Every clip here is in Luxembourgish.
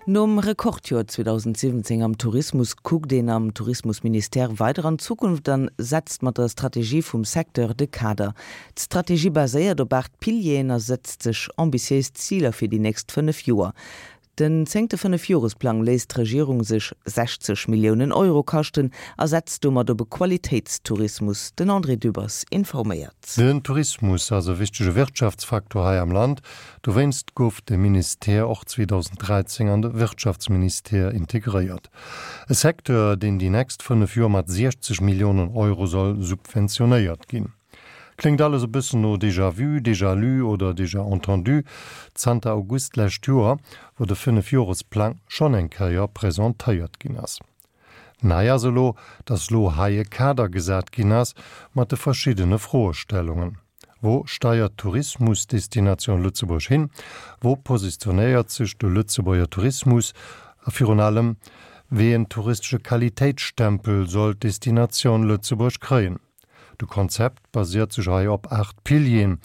Nom Rekordjoer 2017 am Tourismus kuckt een am Tourismusministère weider an d'Zukunft an setzt mat der Strategie vum Secteur de Kader. D'Strategie baséiert op 8 Pilieren a setzt sech ambitiéis Ziler fir déi nächst 5 Joer. Den zéngte Fënnefjoresplang léisst d'Regierung sech 60 Milliounen Euro kaschten a setzt domat op e Qualitéitstourismus. Den André Dübbers informéiert. Den Tourismus ass e wichtege Wirtschaftsfaktor hei am Land. Dowéinst gouf de Ministère och 2013 an de Wirtschaftsministère integréiert. E Secteur, deen déi nächst 5 Joer mat 60 Milliounen Euro soll subventionéiert ginn. Kléngt alles e bëssen no déjà vu, déjà lu oder déjà entendu, zanter August d'lescht Joer, wou de Fënnefjoresplang schonn eng Kéier presentéiert ginn ass. Nei ass elo, datt elo hei e Kader gesat ginn ass mat de verschiddene Froestellungen. Wou steiert d'Tourismusdestination Lëtzebuerg hin? Wou positionéiert sech de Lëtzebuerger Tourismus? A virun allem, wéi en touristesche Qualitéitsstempel soll d'Destination Lëtzebuerg kréien? De Konzept basiert sech hei op 8 Pilieren,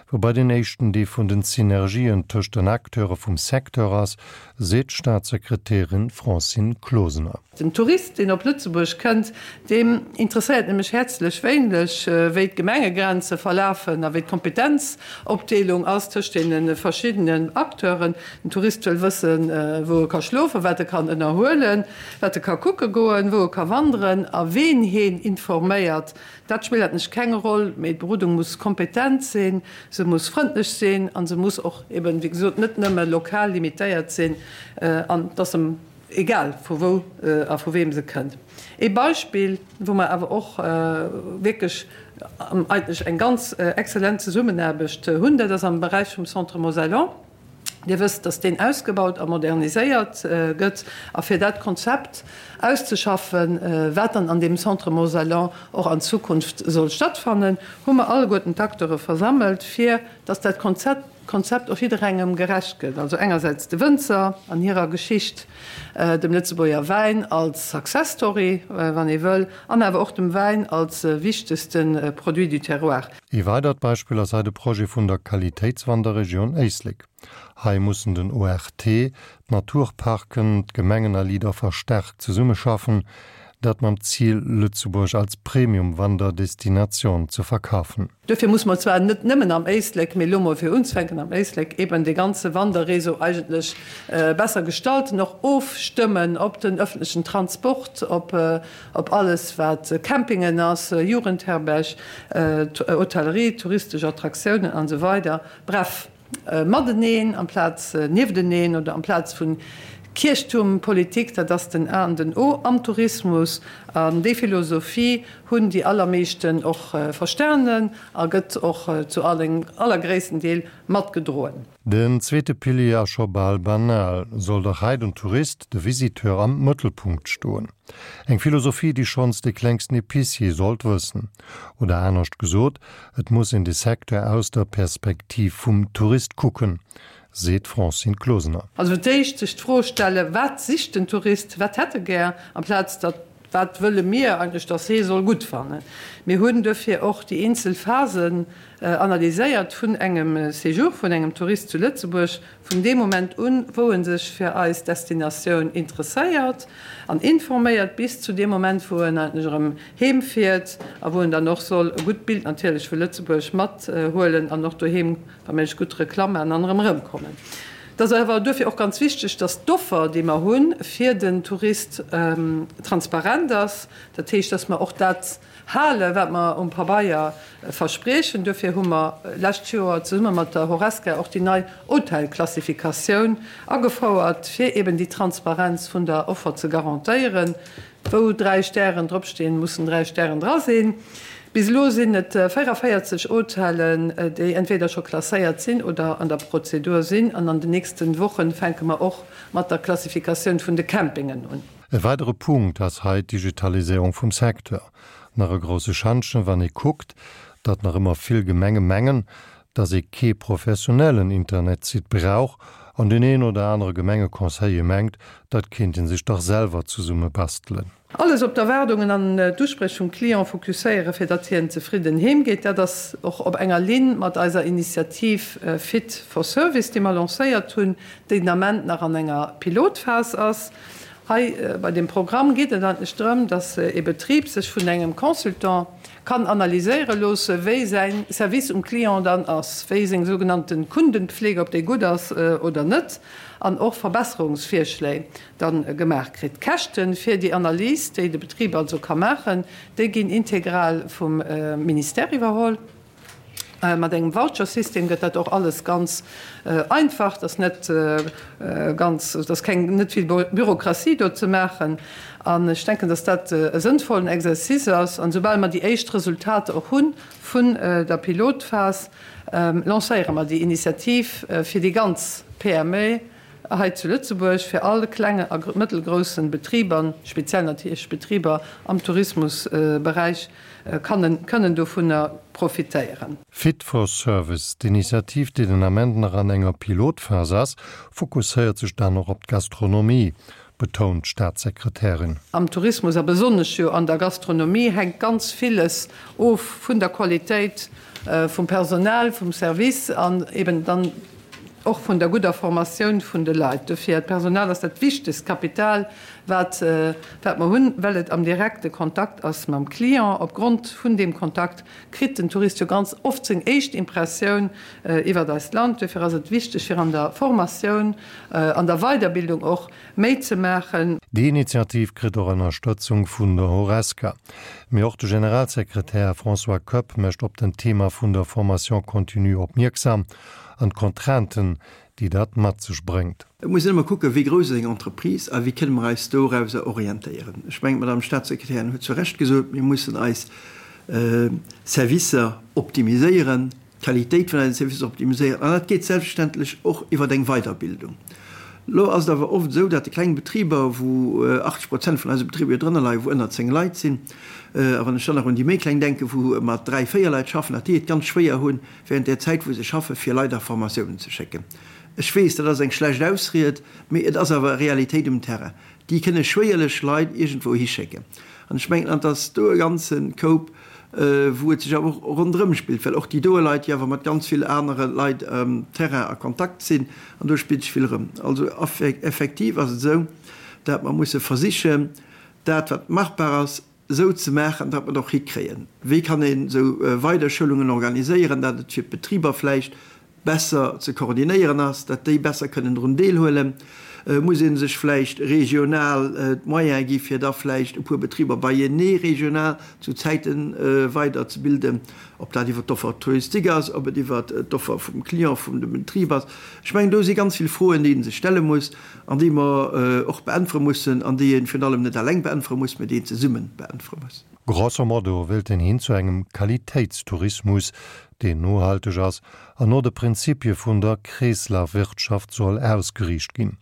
woubai den éischten dee vun den Synergien tëscht den Acteure vum Secteur ass, seet d'Staatssekretärin Francine Closener. Den Tourist, deen op Lëtzebuerg kënnt, deem interesséiert nämlech häerzlech wéineg, wéi d'Gemengegrenze verlafen a wéi d'Kompetenzopdeelung ass tëscht deene verschiddenen Acteuren. Den Tourist wëll wëssen, wou e ka schlofen, wat e kann ënnerhuelen. Wat e ka kucke goen, wou e ka wanderen a ween heen informéiert, dat spillt eigentlech keng Roll, mee d'Berodung muss kompetent sinn, se muss frëndlech sinn a se muss och eben, wéi gesot, net nëmme lokal limitéiert sinn an et ass em egal vu wou a vu weem se kënnt. Ee Beispill, wou mer awer och wierklech eigentlech eng ganz exzellent Zesummenaarbecht hunn, dat ass am Beräich vum Centre Mosellan. Dir wësst, dass deen ausgebaut a moderniséiert gëtt. A fir dat Konzept auszeschaffen, wat dann an deem Centre Mosellan och an Zukunft soll stattfannen, hu mer alleguerten d'Acteure versammelt, fir dass dat Konzept och jidderengem gerecht gëtt, also engersäits de Wënzer an hirer Geschicht, dem Lëtzebuerger Wäin als Success Story, wann ee wëll, an awer och dem Wäin als wichtegste Produit du terroir. Ee weidert Beispill ass hei de Projet vun der Qualitéitswanderregioun Éislek. Hei mussen den ORT, d'Naturparken, d'Gemengen a Leader verstärkt zesummeschaffen, dat mam Zil, Lëtzebuerg als Premium-Wanderdestination ze verkafen. Duerfir muss mer zwar net nëmmen am Éislek, mee elo mol fir unzefänken am Éislek, eben dee ganze Wanderréseau eigentlech besser gestalten, och ofstëmmen op den öffentlechen Transport, op Op alles wat Campingen ass, Jugendherberg, Hotellerie, touristesch Attraktiounen an esou weider. Bref, mateneen amplaz niefteneen oder amplaz vun Kierchtuermpolitik, dat ass den A an den O am Tourismus. An déi Philosophie hunn déi allermeeschten och verstanen a gëtt och zu allergréissten Deel matgedroen. Den zweete Pilier ass scho bal banal, soll dach hei den Tourist, de Visiteur am Mëttelpunkt stoen. Eng Philosophie, déi schonns de klengsten Epicier sollt wëssen. Oder anescht gesot, et muss een de Secteur aus der Perspektiv vum Tourist kucken, seet d'Francine Closener. Also fir d'éischt sech d'Fro stellen, wat sicht den Tourist, wat hätt e gär, amplaz datt Wat wëlle mir eigentlech, dass hee soll gutt fannen? Mir hunn duerfir och déi eenzel Phasen analyséiert vun engem Séjour vun engem Tourist zu Lëtzebuerg, vun deem Moment un, wou e sech fir eis Destinatioun interesséiert an informéiert, bis zu deem Moment, wou en eigentlech erëm heem fiert a wou en dann och soll e gutt Bild natierlech vu Lëtzebuerg mathuelen an och doheem wa méiglech gutt Reklamm maachen an erëm erëmkommen. Et ass awer duerfir och ganz wichteg, dass d'Offer, déi mer hu fir den Tourist, transparent ass. Dat heescht, dass mer och dat halen, wat mer um Pabeier verspriechen. Duerfir hu mer lescht Joer zesumme mat der Horesca och déi nei Hotelklassifikatioun agefouert, fir eben déi Transparenz vun der Offer ze garantéieren. Wou 3 Stären dropstinn, mussen 3 Stären dra sinn. Bis elo sinn et 44 Hotellen, déi entweder scho klasséiert sinn oder an der Prozedur sinn. An an den nächste Wochen fänke mer och mat der Klassifikatioun vun de Campingen un. E weidere Punkt ass hei d'Digitaliséierung vum Secteur. Nach e grousse Schantjen, wann ee kuckt, datt nach ëmmer vill Gemenge mengen, datt ee kee professionellen Internetsite brauch an deen een oder anere Gemengeconseiller mengt, dat kéint ee sech dach selwer zesumme bastelen. Alles op d'Erwaardungen an d'Uspréch vum Client fokusséieren, fir datt hien zefridden heem geet. Dat ass och op enger Linn mat eiser Initiativ Fit for Service, déi mer lancéiert hunn, déi den Ament nach an enger Pilotphas ass. Hei bei deem Programm geet et eigentlech drëm, datt ee Betrib sech vun engem Consultant kann analyséiere loosse, wéi säi Service um Client dann ass, wéi seng sougenannte Kundenpflege, ob déi gutt ass oder net, an och Verbesserungsvirschléi da gemaach kritt. D'Käschte fir déi Analys, déi de Betrib also ka maachen, déi ginn integral vum Ministère iwwerholl. Mat engem Vouchersystem gëtt dat och alles ganz einfach, et ass net ganz, et ass keng, net vill Bürokratie do ze maachen. An ech denken, dass dat e sënnvollen Exercice ass. An esoubal mer déi éischt Resultater och hu vun der Pilotphas, lancéiere mer déi Initiativ fir déi ganz PME hei zu Lëtzebuerg, fir all klenge a mëttelgroussen Betriber, speziell natierlech Betriber am Tourismusberäich, kënnen dovunner profitéieren. Fit for Service, D'Initiativ, déi den Ament nach an enger Pilotphas ass, fokusséiert sech dann och op d'Gastronomie, betount d'Staatssekretärin. Am Tourismus a besonnesch jo an der Gastronomie hänkt ganz villes of vun der Qualitéit vum Personal, vum Service an eben dann och vun der gudder Formatioun vun de Leit. Dofir, d'Personal ass dat wichtegst Kapital, wat wat mer hunn, well et am direkte Kontakt ass mam Client. Opgrond vun deem Kontakt kritt den Tourist jo ganz oft seng éischt Impressioun iwwert eist Land. Duerfir ass et wichteg, fir an der Formatioun, an der Weiderbildung och méi ze maachen. Déi Initiativ kritt och Ënnerstëtzung vun der Horesca. Mee och de Generalsekretär François Koepp mécht op den Thema vun der Formation continue opmierksam an d'Contrainten, déi dat mat sech bréngt. Et muss een ëmmer kucken, wéi grouss ass eng Entreprise a wéi kënne mer eis dorauser orientéieren. Ech mengen, d'Madame Statssekretärin huet zu Recht gesot, mir mussen eis Servicer optimiséieren, d'Qualitéit vun eisen Servicer optimiséieren, an dat geet selbstverständlech och iwwer eng Weiderbildung. Elo ass et awer oft esou, datt déi kleng Betriber, wou 80 Prozent vun eise Betriber jo drënner leien, wou ënner 10 Leit sinn, a wann ech dann nach un déi méi kleng denken, wou mat dräi, véier Leit schaffen, datt déi et ganz schwéier hunn, während där Zäit wou se schaffen, fir Leit a Formatiounen ze schécken. Ech weess, dat ass eng schlecht Ausried, mee et ass awer Realitéit um Terrain. Déi kënne schwéierlech Leit iergendwou hischécken. An ech mengen, an et ass do e ganze Koup, wou et sech awer och ronderëm spillt, well och déi doe Leit jo awer mat ganz vill anere Leit um Terrain a Kontakt sinn, an do spillt sech vill erëm. Also effektiv ass et esou, dat mer musse versichen, dat wat machbar ass, esou ze maachen, datt mer et och hikréien. Wéi kann een esou Weiderschoulungen organiséieren, datt et fir d'Betriber vläicht besser ze koordinéieren ass, datt déi besser kënnen drun deelhuelen? Muss ee sech vläicht regional d'Moyene gi fir da vläicht e puer Betriber beienee regional zu Zäite weiderzebilden, ob dat iwwer d'Offer touristique ass, ob et iwwer d'Offer vum Client, vum dem Betrib ass? Ech mengen, do si ganz vill Froen, déi ee sech stelle muss. An déi mer och beäntwere mussen, an déi ee virun allem net eleng beäntwere muss, mä déi een zesumme beäntwere muss. Grosso modo wéilt een hin zu engem Qualitéitstourismus, deen nohalteg ass an no de Prinzipie vun der Kreeslafwirtschaft soll ausgeriicht ginn.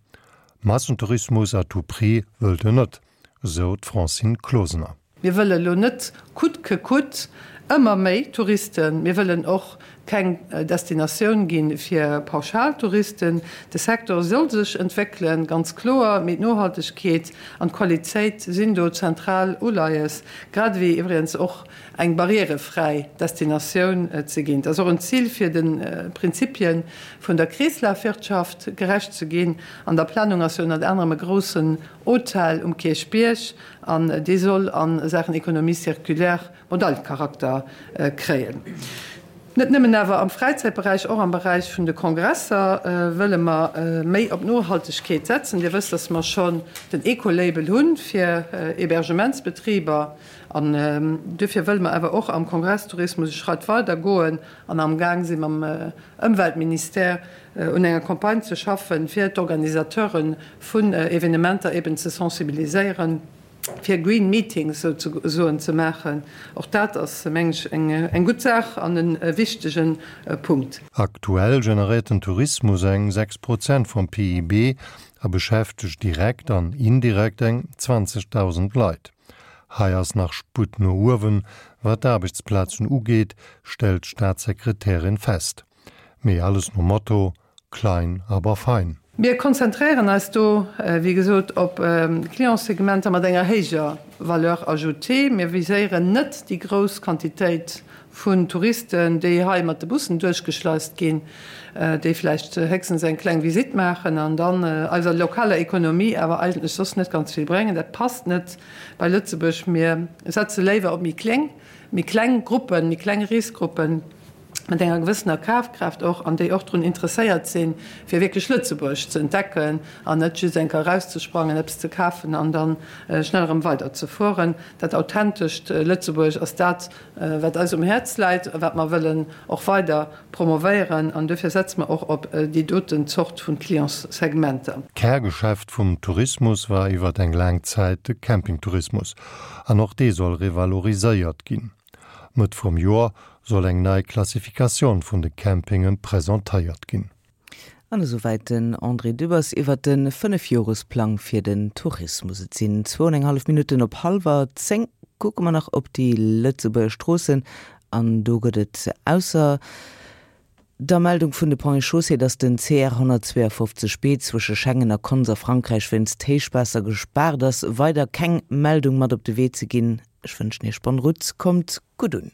Massentourismus à tout prix wëllt en net, esou d'Francine Closener. Mir wëlle lo net coûte que coûte ëmmer méi Touristen. Mir wëllen och keng Destinatioun gi fir Pauschaltouristen. De Secteur soll sech entwéckelen, ganz kloer, mee d'Nohaltegkeet an d'Qualitéit sinn do zentral Uleies, grad ewéi iwwregens och eng barrièrefräi Destinatioun ze ginn. Et ass och en Zil fir de Prinzipie vun der Kreeslafwirtschaft gerecht ze ginn. An der Planung ass jo ënnert anerem e groussen Hotel um Kierchbierg. An dee soll a Saachen Économie circulaire Modellcharakter kréien. Net nëmmen awer am Fräizäitberäich, och am Beräich vun de Kongresser wëlle mer méi op Nohaltegkeet setzen. Dir wësst, dass mer schonn den Ecolabel hu fir Hébergementsbetriber. An duerfir wëlle mer awer och am Kongresstourismus e Schratt weider goen an amgaang si mam Ëmweltministère un enger Campagne ze schaffen, fir d'Organisateure vun Evenementer eben ze sensibiliséieren, fir Green Meetings souzesoen ze maachen. Och dat ass, meng ech, eng gutt Saach an e wichtege Punkt. Aktuell generéiert den Tourismus eng 6 Prozent vum PIB a beschäftegt direkt an indirekt eng 20.000 Leit. Hei ass nach Sputt no uewen, wat d'Aarbechtsplazen ugeet, stellt d'Staatssekretärin fest. Mee alles nom Motto, Klein, aber fein. Mir konzentréieren eis do, wéi gesot, op Clientssegmenter mat enger héijer Valeur ajoutée. Mir viséieren net déi grouss Quantitéit vun Touristen, déi hei mat de Bussen duerchgeschleist ginn, déi vläicht héchstens eng kleng Visitt maachen an dann eiser lokaler Ekonomie awer eigentlech soss net ganz vill bréngen. Dat passt net bei Lëtzebuerg. Mir setze léiwer op méi kléng, méi kleng Gruppen, méi kleng Reesgruppen. mat enger gewëssener Kafkraaft och, an déi och drun interesséiert sinn, fir wierklech Lëtzebuerg ze entdecken an net just eng Kéier erauszesprangen, eppes ze kafen an da schnell erëm weiderzefueren. Dat authentescht Lëtzebuerg ass dat, wat eis um Häerz läit a wat mer wëllen och weider promovéieren. An duerfir setze mer och op déi doten Zort vu Clientssegmenter. D'Kärgeschäft vum Tourismus war iwwert eng laang Zäit de Campingtourismus. An och dee soll revaloriséiert ginn. Mëtt vum Joer soll eng nei Klassifikatioun vun de Campinge presentéiert ginn. An esouwäit den André Dübbers iwwert de Fënnefjoresplang fir den Tourismus. Et sinn zwou an eng hallef Minutten op hallwer 10. Kucke mer nach op déi Lëtzebuerger Stroossen an do gëtt et ausser der Meldung vun de Ponts et Chaussées, dass den CR 152 B zwësche Schengen a Konz a Frankräich wéinst Héichwaasser gespaart ass, weider keng Meldung mat op de Wee ze ginn. Ech wënschen Iech bonne route, kommt gutt un.